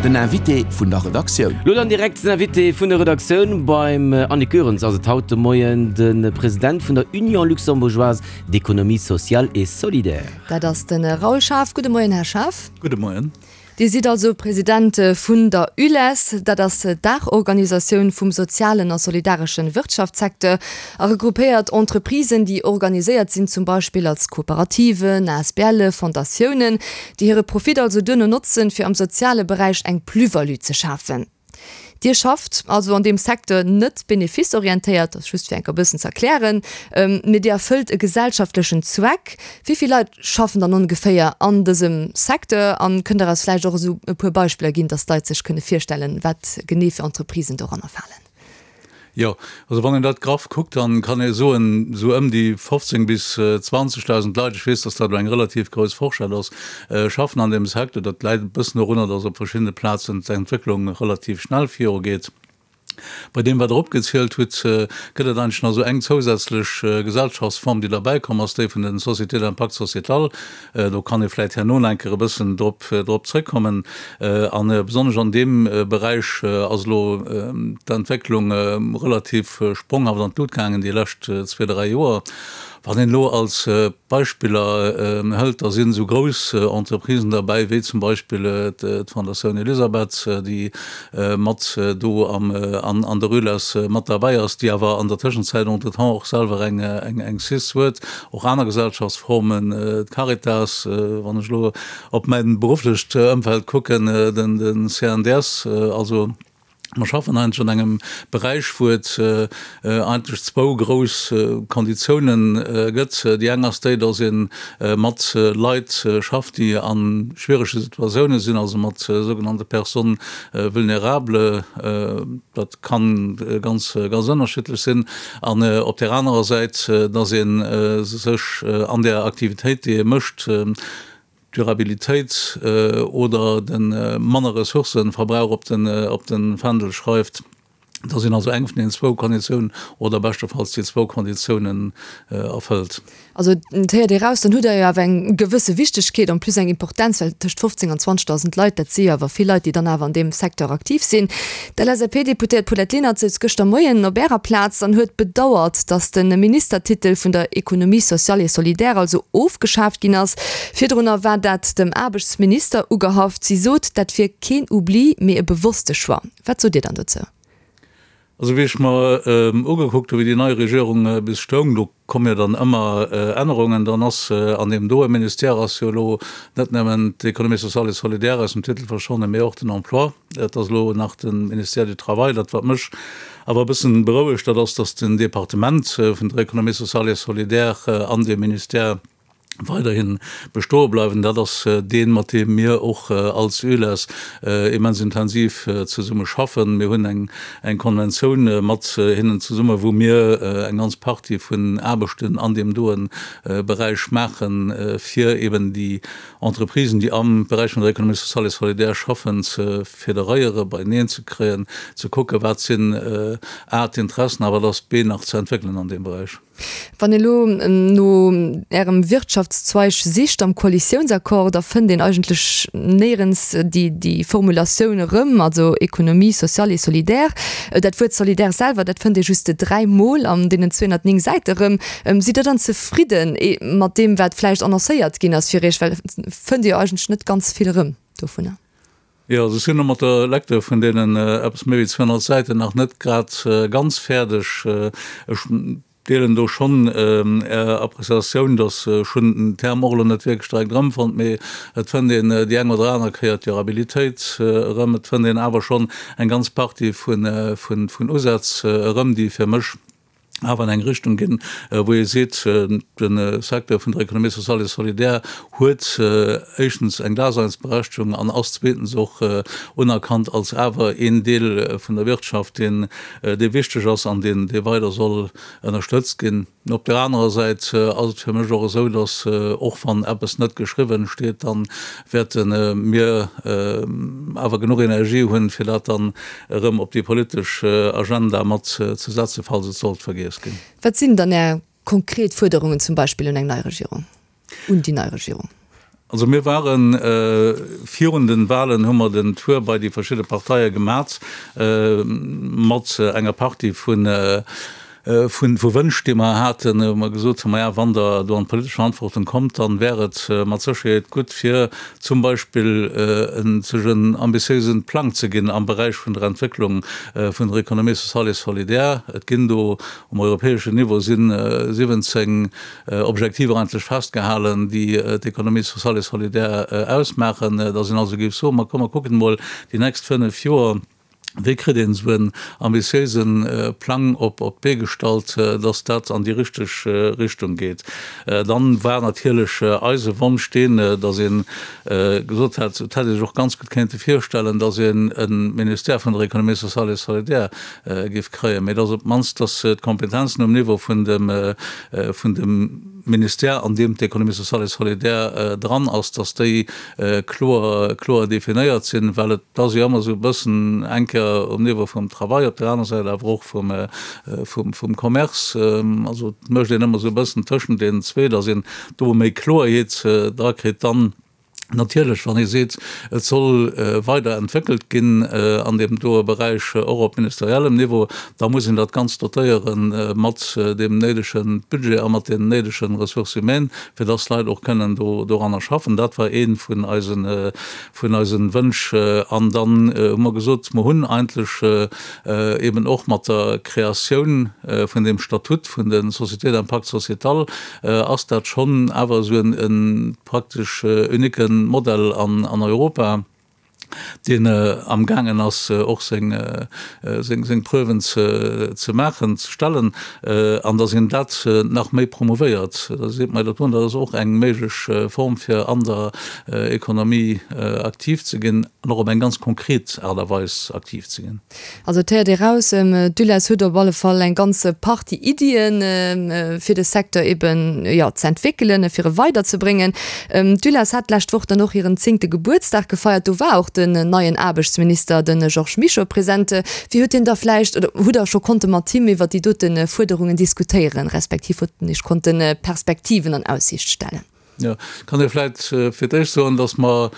Den Invité vun der Redaktioun. Lo dann direkt den Invité vun der Redaktioun. Beim Annick Goerens ass et haut de Moien de President vun der Union luxembourgeoise d'économie sociale et solidaire. Dat ass de Raoul Schaaf. Gudde Moien, Här Schaaf. Gudde Moien. Dir sidd also President vun der ULES, dat ass d'Daachorganisatioun vum sozialen a solidaresche Wirtschaftssecteur a regroupéiert Entreprisen, déi organiséiert sinn zum Beispill als Kooperativen, ASBLe, Fondatiounen, déi hire Profit also duerno notzen, fir am soziale Beräich eng Plus-value ze schafen. Dir schafft also an deem Secteur net benefice-orientéiert, dat ass just fir enker e bëssen ze erklären, mee Dir erfëllt e gesellschaftlechen Zweck. Wéi vill Leit schaffen dann ongeféier an dësem Secteur? An kënnt Der eis vläicht och esou e puer Beispiller ginn, dass d'Leit sech kënne virstellen, wat genee fir Entreprisen doranner falen? Jo, also wann een dat graff kuckt, dann kann ee soen, esou ëm déi 15 bis 20.000 Leit, ech weess, dass dat elo eng relativ grouss Forschett ass, schaffen an deem Secteur. Dat läit e bëssen dorunner, dass op verschiddene Plazen d'Entwécklung relativ schnell virugeet. Bei deem, wat Der opgezielt hutt, gëtt et eigentlech nach esou eng zousätzlech Gesellschaftsform, déi derbäikomm ass, déi vun den Sociétés d'impact sociétal. Do kann ee vläicht herno nach eng Kéier e bëssen drop, drop zrëckkommen. A besonnesch an deem Beräich ass elo d'Entwécklung relativ spronghaft an d'Lut gaangen déi lescht zwee, dräi Joer. Wann een elo als Beispiller hëlt, da sinn esou grouss Entreprisen derbäi wéi zum Beispill d'Fondatioun Elisabeth, déi mat do am, an der ULES mat derbäi ass, déi awer an der Tëschenzäit entretemps och selwer eng, eng cis huet. Och aner Gesellschaftsformen, d'Caritas, wann ech elo op mäi berufflecht Ëmfeld kucken, den CNDS, also mer schaffen eigentlech an engem Beräich, wou et eigentlech zwou grouss Konditiounen gëtt. Déi eng ass déi, datt ee mat Leit schafft, déi a schwierege Situatioune sinn, also mat sougenannte Personnes vulnérables. Dat ka ganz, ganz ënnerschiddlech sinn. An op där anerer Säit, dass ee sech an där Aktivitéit, déi ee mécht, d'Durabilitéit oder de manner Ressourcëverbrauch op de Fändel schreift, dass een also eng vun deenen zwou Konditiounen oder beschtefalls déi zwou Konditiounen erfëllt. Also et héiert ee raus, dann hutt Der jo awer eng gewësse Wichtegkeet, en plus eng Importenz, well tëscht 15 an 20.000 Leit, dat si jo awer vill Leit, déi dann awer an deem Secteur aktiv sinn. D'LSAP-Deputéiert Paulette Lenert souz gëschter Moien op Ärer Plaz an huet bedauert, datt de Ministertitel vun der Économie sociale et solidaire also ofgeschaaft ginn ass. Virdrunner war dat dem Aarbechtsminister ugehaft. Si sot, dat wier keen Oubli, mee e bewosste Choix. Wat sot Dir dann dozou? Also wéi ech mer ugekuckt hu wéi déi nei Regierung bis stoung, do komme jo dann ëmmer Ännerungen, dann ass an deem doe Ministère ass jo elo net nëmmen d'Économie sociale et solidaire aus dem Titel verschwonnen, mee och den Emploi. Et ass elo nach de Ministère du Travail. Dat wat mech awer e bëssen berouegt, dat ass, datt den Departement vun der Économie sociale et solidaire an deem Ministère, weiderhi bestoe bleiwen. Dat ass deen, mat deem mir och als ULES immens intensiv zesumme schaffen. Mir hunn eng Konventioun mat hinnen zesumme, wou mir eng ganz Partie vun Aarbechten an deem doen Beräich maachen, fir eben déi Entreprisen, déi am Beräich vun der Économie sociale et solidaire schaffen, ze federéieren, beieneen ze kréien, ze kucken, wat sinn a d'Interessen a wat ass b nach ze entwéckelen an deem Beräich. Wann een elo no Ärem Wirtschaftszweig sicht am Koalitiounsaccord, da fënnt een eigentlech néierens déi Formulatioun erëm, also Économie sociale et solidaire. Dat Wuert solidaire selwer, dat fënnt ee just dräimol an deenen 209 Säite erëm. Sidd Der dann zefridden mat deem, wat vläicht annoncéiert ginn ass fir Iech? Well et fënnt ee jo eigentlech net ganz vill erëm dovunner. Jo, also ech sinn elo mat der Lecture vun deenen eppes méi wéi 200 Säiten nach net grad ganz fäerdeg. Ech deelen do schonn Är Appreciatioun, dass ech hunn den Term och elo net wierklech direkt erëmfonnt, mee et fënnt een déi eng oder aner Kéier d'Durabilitéit erëm. Et fënnt een awer schonn eng ganz Partie vun Usätz erëm, déi fir mech awer an eng Richtung ginn, wou ee seet, de Secteur vun der Économie sociale et solidaire huet éischtens eng Daseinsberechtegung an ass zweetens och unerkannt als awer een Deel vun der Wirtschaft, deen dee wichteg ass an deen dee weider soll ënnerstëtzt ginn. Op där anerer Säit ass et fir mech och esou, datt och wann eppes net geschriwwen steet, da wäerte mir awer genuch Energie hunn, fir dat dann erëm op déi politesch Agenda mat ze setzen, falls et sollt vergiess ginn. Wat sinn dann Är konkret Fuerderungen zum Beispill un eng nei Regierung, un déi nei Regierung? Also mir ware virun den Wahlen, hu mer den Tour bei déi verschidde Parteie gemat mat enger Partie vu vu Wënsch, déi mer haten, wou mer gesot hunn, maja wann Der do an d'politesch Verantwortung kommt, dann wär et mat Sécherheet gutt fir zum Beispill sech en ambitiéisen Plang ze ginn am Beräich vun der Entwécklung vun der Économie sociale et solidaire. Et ginn do um europäeschen Niveau si 17 Objektiver eigentlech festgehalen, déi d'Économie sociale et solidaire ausmaachen, dass een also géif soen, ma komm mer kucken emol déi nächst fënnf Joer, wéi kritt een esou en ambitiéise Plang op d'Bee gestallt, dass dat an déi richteg Richtung geet. Dann war natierlech eise Wonsch deen, dass ee gesot hätt, et hätt ee sech och ganz gutt kéinte virstellen, dass een e Ministère vun der Économie sociale et solidaire géif kréien, mä dass op d'mannst, dass d'Kompetenzen um Niveau vun dem vun dem Ministère, an deem d'Économie sociale et solidaire dran ass, dass déi kloer, kloer definéiert sinn, well et ass jo ëmmer esou e bëssen eng Kéier um Niveau vum Travail, op där aner Säit awer och vum, vum, vum Commerce. Also et mécht een ëmmer esou e bëssen tëschent deenen zwee, dass een do méi Kloerheet drakritt dann. Natierlech, wann ee seet, et soll weider entwéckelt ginn an deem doe Beräich, och op ministeriellem Niveau, da muss een dat Ganzt dotéiere mat deem néidege Budget a mat deenen néidege Ressources humaines, fir dass d'Leit och kënnen do doranner schaffen. Dat war ee vun eisen, vun eisen Wënsch. An dann hu mer gesot, mer hunn eigentlech eben och mat der Kreatioun vun deem Statut vun de Sociétés d'impact sociétal, ass dat schonn awer esou en praktesch unique Modell an Europa, deen amgaangen ass och seng Preuven ze maachen, ze stellen, an datt een dat nach méi promouvéiert. Da seet mer dat do, dat ass och eng méiglech Form fir an der Economie aktiv ze ginn an och op eng ganz konkret Aart a Weis aktiv ze ginn. Also et héiert ee raus, d'ULES huet op alle Fall eng ganz Partie Iddien, fir de Secteur eben, jo, ze entwéckelen, fir e weiderzebréngen. D'ULES hat d'lescht Woch dann och hiren zéngte Gebuertsdag gefeiert. Do war och den neien Aarbechtsminister, de Georges Mischo, present. Wéi huet hien da vläicht, oder hutt Der scho konnte mat him iwwer déi dote Fuerderungen diskutéieren, respektiv hutt en Iech konnte Perspektiven an Aussiicht stellen? Jo, kann ee vläicht fir d'éischt soen, datt mer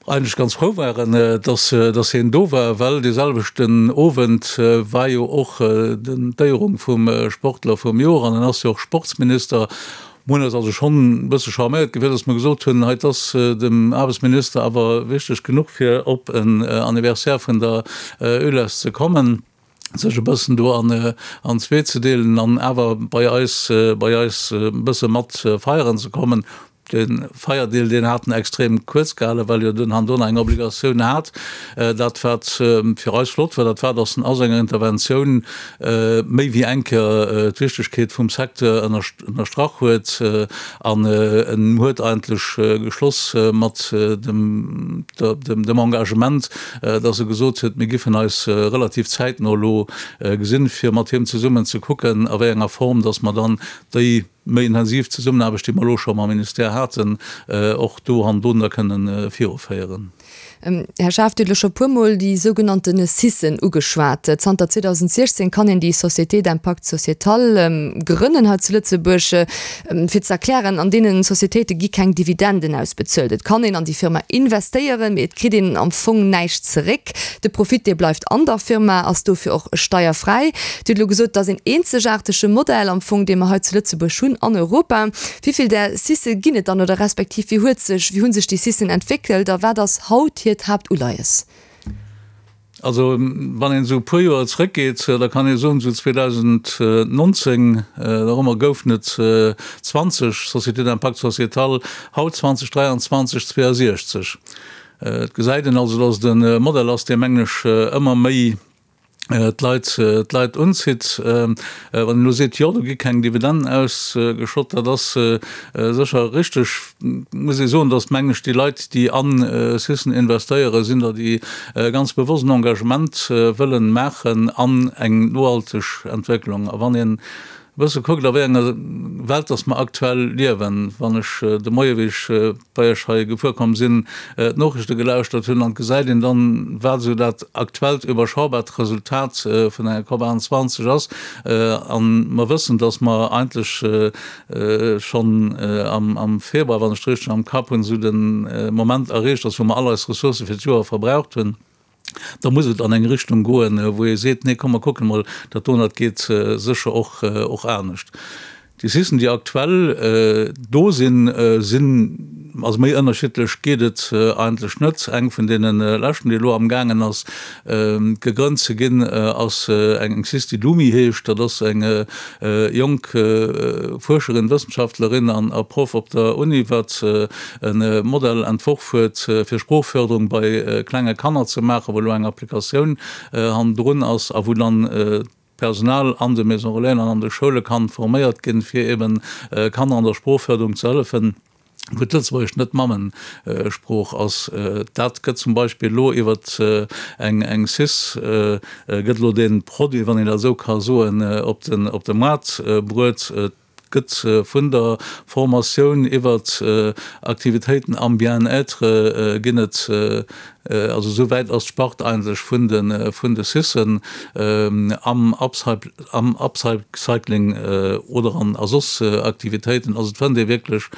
eigentlech ganz frou waren, dass, dass hien do war, well dee selwechten Owend war jo och d'Éierung vum Sportler vum Joer an en ass jo och Sportsminister. Mir hunn eis also schonn e bësse charméiert gefillt, dass mer gesot hunn, hei, et ass dem Aarbechtsminister awer wichteg genuch, fir op en Anniversaire vun der ULES ze kommen. sech e bëssen do an an zwee ze deelen an awer bei eis bei eis e bësse mat feieren ze kommen. De Feierdeel deen hat en extrem kuerz gehalen, well jo den Handona eng Obligatioun hat. Dat wat fir eis flott war, dat war, datt en a senger Interventioun méi wéi eng Kéier d'Wichtegkeet vum Secteur ënnerstrach huet an en huet eigentlech geschloss mat dem dem Engagement, dass e gesot huet, mir giffen eis relativ zäitno elo gesinn, fir mat him zesummen ze kucken, a wéi enger Form dass mer dann déi méi intensiv Zesummenaarbecht, déi mer elo scho mam Ministère haten, och do an do da kënnen viruféieren. Här Schaaf, Dir hutt elo scho e puermol déi sougenannte CISen ugeschwat. Zanter 2016 kann een déi Société d'impact sociétal grënnen hei zu Lëtzebuerg. Fir ze erklären, an deenen Societéite gi keng Dividenden ausbezuelt. Et kann een an déi Firma investéieren, mee et kritt een am Fong näischt zeréck. De Profit, dee bleift an der Firma, ass dofir och steierfräi. Dir hutt elo gesot, et ass een eenzegaartege Modell am Fong, dee mer hei zu Lëtzebuerg hunn an Europa. Wéi vill där CICe ginn et dann oder respektiv wéi huet sech, wéi hu sech déi CICen entwéckelt a wat ass haut hiert Haaptuleies? Also wann een esou e puer Joer zrëckgeet, da kann ee soen, esou 2019 dorëmmer goufen et 20 Sociétés d'impact sociétal, haut 2023 62. Et gesäit een also, datt et e Modell ass, dee mengen ech ëmmer méi d'Leit, d'Leit unzitt. Wann een elo seet, jo do gi keng Dividenden ausgeschott, dat ass sécher richteg. Muss ee soen, datt mengen ech déi Leit, déi an Syssen investéieren, sinn der, déi ganz bewosst en Engagement wëllen maachen an eng nohalteg Entwécklung. A wann een. bësse kuckt, a wéi enger Welt dass mer aktuell liewen, wann ech de Moie wéi ech bei Iech hei gefuer komm sinn, d'Noriichte gelauschtert hunn, an et gesäit een dann, wat esou dat aktuellt iwwerschaubart Resultat vun enger COP 28 ass, a mer wëssen, dass mer eigentlech schonn am Februar, wann ech et richteg am Kapp hunn, esou de Moment erreecht ass, wou mer all eis Ressourcë fir d'Joer verbraucht hunn, da muss et an eng Richtung goen, wou ee seet, nee komm mer kucken emol, dat do, dat geet sécher och anescht. Déi Sicen, déi aktuell do sinn, sinn, also méi ënnerschiddlech geet et eigentlech net. Eng vun deene leschten, déi elo amgaangen ass gegrënnt ze ginn, ass eng Cis, déi Lumi heescht. Dat ass eng jonk Fuerscherin, Wëssenschaftlerin an a Proff op der Uni, wat e Modell entworf huet, fir Sproochförderung bei klenge Kanner ze maachen, wou elo eng Applikatioun hannendrun ass a wou dann d'Personal an de Maison Relaisen an an de Schoule kann forméiert ginn, fir eben Kanner an der Sproochförderung ze hëllefen, wou d'Lëtzebuergescht net d'Mammesprooch ass. Dat gëtt zum Beispill elo iwwer eng eng cis gëtt elo dee Produit, wann een dat esou ka soen, op den op de Moart bruet. Et gëtt vun der Formatioun iwwert Aktivitéiten am Bien-être ginn et Also esou wäit ass d'Spart eigentlech vun de vun de Cissen am am Upcycling oder an a soss Aktivitéiten. Also et fënnt ee wierklech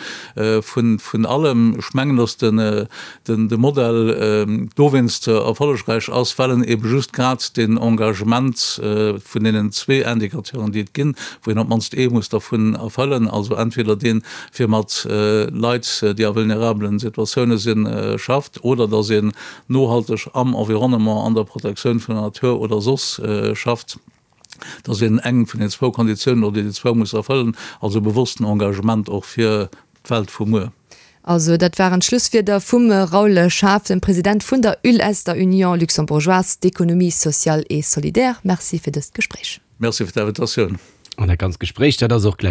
vun vun allem. Ech mengen, datt den den de Modell dowéinst erfollegräich ass, well en ebe just grad deen Engagement vun deenen zwee Indicateuren, déi et ginn, wou een op d'mannst ee muss dervun erfëllen, also entweder deen, fir mat Leit, déi a vulnerabelen Situatioune sinn, schafft, oder datt een nohalteg am Environnement, an der Protektioun vun der Natur oder soss schafft. Dat ass eng vun den zwou Konditiounen, oder déi zwou muss erfëllen, also e bewossten Engagement och fir d'Welt vu muer. Also, dat waren d'Schlusswierder vum Raoul Schaaf, dem President vun der ULS, der Union luxembourgeoise d'économie sociale et solidaire. Merci fir dëst Gespréich. Merci fir d'Invitatioun. An dat ganzt Gespréich, dat ass och gläich.